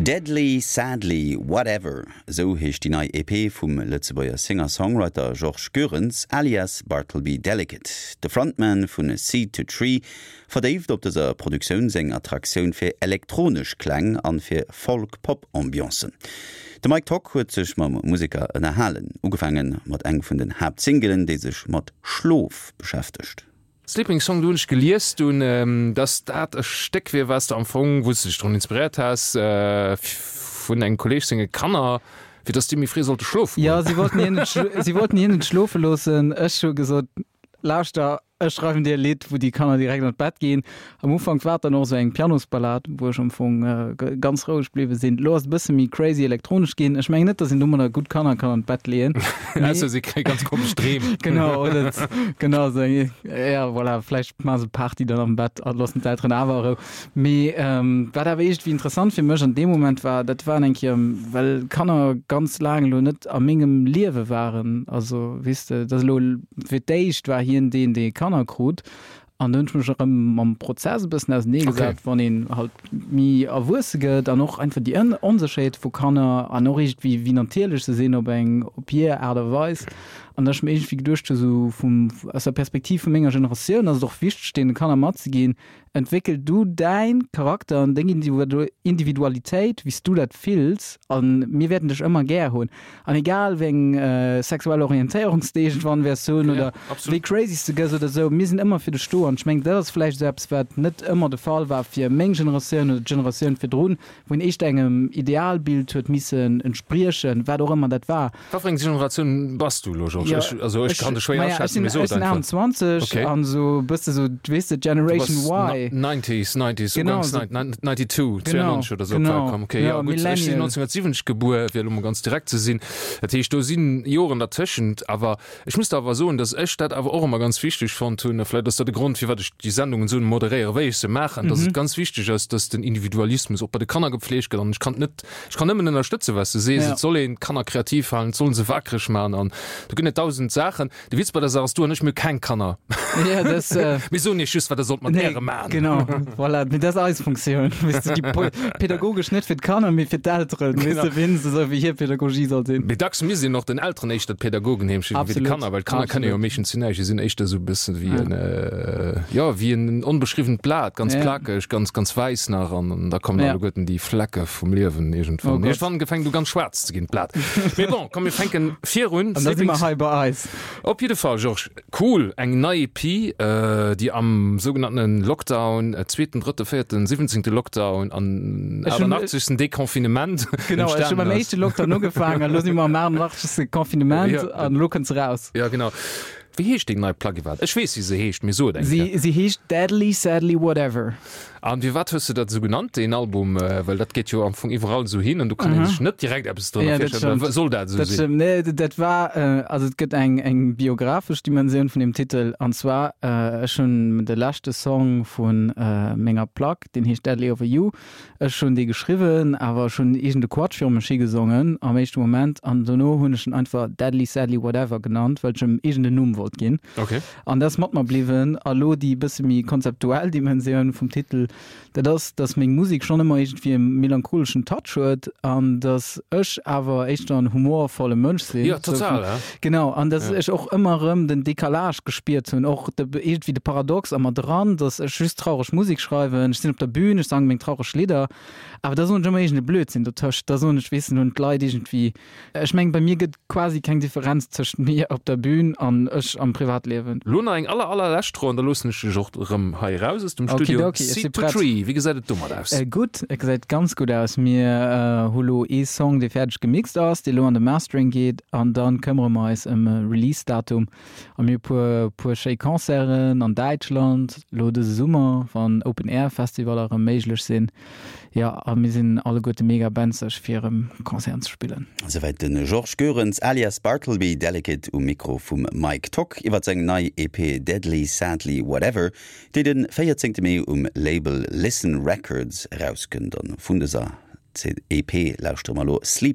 Deadly Sadly Whatever, esou heescht déi nei EP vum Lëtzebuerger Singer-Songwriter Georges Goerens alias Bartleby Delicate. De Frontman vun Seed to Tree verdéift op dëser Produktioun seng Attraktioun fir elektronesch Kläng an fir Folk-Pop-Ambiancen. De Mike Tock huet sech mam Museker ënnerhalen, ugefaange mat eng vun den Haaptsingelen, déi sech mat Schlof beschäftegt. Sleeping Song, do hunn ech gelies dunn, dass dat e Stéck wier, wat s de am Fong, wou s de dech drun inspiréiert has, vun engem Kolleeg senge Kanner, fir dass déi méi fréi sollte schlofe goen. Jo, si wollten hien net, si wollten hien net schlofe loossen. Ech hu gesot, Lauschter, ech schreiwen dir e Lidd, wou déi Kanner direkt an d'Bett ginn. Am Ufank war et dann och esou eng Pianosballad, wou ech am Fong ganz roueg bliwwe sinn. Elo ass et e bësse méi crazy elektronesch ginn. Ech mengen net, datt een domadder gutt Kanner kann an d'Bett leeën. Ausser si kréie ganz komesch Dreem. Genau, oder genau esou eng, ja voilà, vläicht maache se Party dann am Bett a loossen d'Elteren awer a Rou. Mee wat awer iergendwéi interessant fir mech an deem Moment war, dat waren eng Kéier, well Kanner ganz laang elo net a mengem Liewe waren, also weess de, dat ass elo fir d'éischt war hien deen, dee Kanner krut. An do hunn ech mech erëm mam Prozess e bëssen auseneegesat, wann een halt méi erwuesse gëtt an och einfach déi Onsécherheet vu Kanner an och iergendwéi wéi natierlech se sinn op eng, op hir Aart a Weis. An datt ech mir iergendwéi geduecht hu sou vum, aus der Perspektiv vu menger Generatioun ass et och wichteg deene Kanner matzeginn, Entwéckel du däin Charakter an deng Individualitéit wéi s du dat fills an mir wäerten dech ëmmer gär hunn. An egal wéi eng sexuell Orientéierung s de iergendwann wäers hunn oder wéi crazy s de gëss oder esou, mir sinn ëmmer fir dech do. An ech mengen, dat ass vläicht esou eppes, wat net ëmmer de Fall war fir meng Generatioun oder d'Generatioun virdrun, wou een éischter engem Idealbild huet missen entspriechen, wat och ëmmer dat war. Wat fir eng Generatioun bass du elo, Georges? Ja, ech, also ech kann dech schwéier aschätzen, mee so et einfach. Ech sinn 28 okay. an esou bësse sou, weess de, Generation Y. 90s, 90s, genau, uganks 92, 92 oder sou op d'Welt komm. Okay, ja, gutt, ech sinn 1970 gebuer, fir elo mol ganz direkt ze sinn. Dat heescht, do sinn Joren dertëschent, awer ech muss der awer soen, datt ech dat awer och ëmmer ganz wichteg fonnt hunn, a vläicht ass dat e Grond, firwat ech déi Sendungen esou moderéieren, wéi ech se maachen, datt et ganz wichteg ass, datt den Individualismus och bei de Kanner gepflegt gëtt an ech kann et net Ech kann nëmmen ënnerstëtzen, wat s de sees. Et soll een d'Kanner kreativ halen, et soll se wakereg maachen an do ginn et dausend Saachen. De Witz bei der Saach ass, du an ech, mir hu keng Kanner. Ja, das, äh, Mir soen iech just, wat der sollt mat nee, äre maachen. Genau, voilà. Mee dat ass eis Funktioun, weess de, déi po pädagogesch net fir d'Kanner, mee fir d'Elteren, weess de, wien se esou wéi hir Pädagogie soll sinn. Mee dacks misst een och den Elteren éischter d'Pädagogen heem schicken wéi de Kanner, well d'Kanner kënne jo meeschtens zu näischt. Déi sinn éischter esou e bëssen wéi en, jo, wéi en onbeschriwwent Blat, ganz plakeg, ganz, ganz wäiss nach an da kommen alleguerten déi Flecke vum Liewen iergendwann. Oh Iergendwann gefänkt u ganz schwaarz ze ginn, d'Blat. Mee bon, komm mir fänken virun. An da si mer hei bei eis. Op jidde Fall, Georges, cool, eng nei EP, déi am sougenannten Lockdown, zweeten, drëtte, véierten, siwwenzéngte Lockdown an 88. Deconfinement Genau, ech hu beim éischte Lockdown ugefaangen an elo si mer am 88. Confinement an elo kënnt se raus. Jo, genau. Wéi heescht deng nei Plack iwwerhaapt? Ech weess, wéi se heescht, mee so et eng Kéier. Si heescht Deadly Sadly Whatever. An firwat hues de dat esou genannt, deen Album? Well dat geet jo am Fong iwwerall esou hin an do kann ee sech net direkt eppes drënner virstellen. Oder soll dat esou sinn? Dat stëmmt. Nee, dat war, also et gëtt eng, eng biographesch Dimensioun vun deem Titel. An zwar, ech hunn de leschte Song vu menger Plack, deen heescht Deadly Over You, Ech hunn dee geschriwwen, awer ech hunn iergend e Quatsch viru mech higesongen am éischte Moment an dono hunn ech en einfach Deadly Sadly Whatever genannt, well ech em iergend en Numm wollt ginn. Okay. An dat ass mat mer bliwwen. A lo déi bësse méi konzeptuell Dimensioun vum Titel, dat ass, dass meng Musek schonn ëmmer iergendwéi e melancholeschen Touch huet an dass ech awer éischter en humorvolle Mënsch sinn. Jo, total, ja. Genau, an dass ech och ëmmer erëm den Décalage gespiert hunn, och de, iergendwéi de Paradox a mer dran, dass ech just traureg Musek schreiwen, ech sinn op der Bühn, ech sange meng traureg Lidder, awer da soen ech ëmmer iergend e Blödsinn dotëscht, da soen ech, weess de, hunn d'Leit iergendwéi, ech mengen, bei mir gëtt quasi keng Differenz tëscht mir op der Bühn an ech am Privatliewen. Lo nach eng aller allerlescht Fro an da loossen ech dech och erëm hei eraus aus dem Studio. Okidoki, ech si Seed to prett. Tree, wéi gesäit et domat aus? Gutt, et gesäit ganz gutt aus. Mir hu lo ee Song, dee fäerdeg gemixt ass, dee lo an de Mastering geet an dann këmmere mer eis ëm e Release-Datum. A mir hu puer, puer schéi Concerten an Däitschland lo dëse Summer, wann Open-Air-Festivaller erëm méiglech sinn. Jo, a mir sinn alleguerte mega benzeg fir erëm Concerten ze spillen. Souwäit de Georges Goerens alias Bartleby Delicate um Mikro vum Mike Tock iwwer seng nei EP Deadly Sadly Whatever, déi de 14 Mee um Label Listen Records erauskënnt. An vun dëser EP lauschtere mer elo Sleep.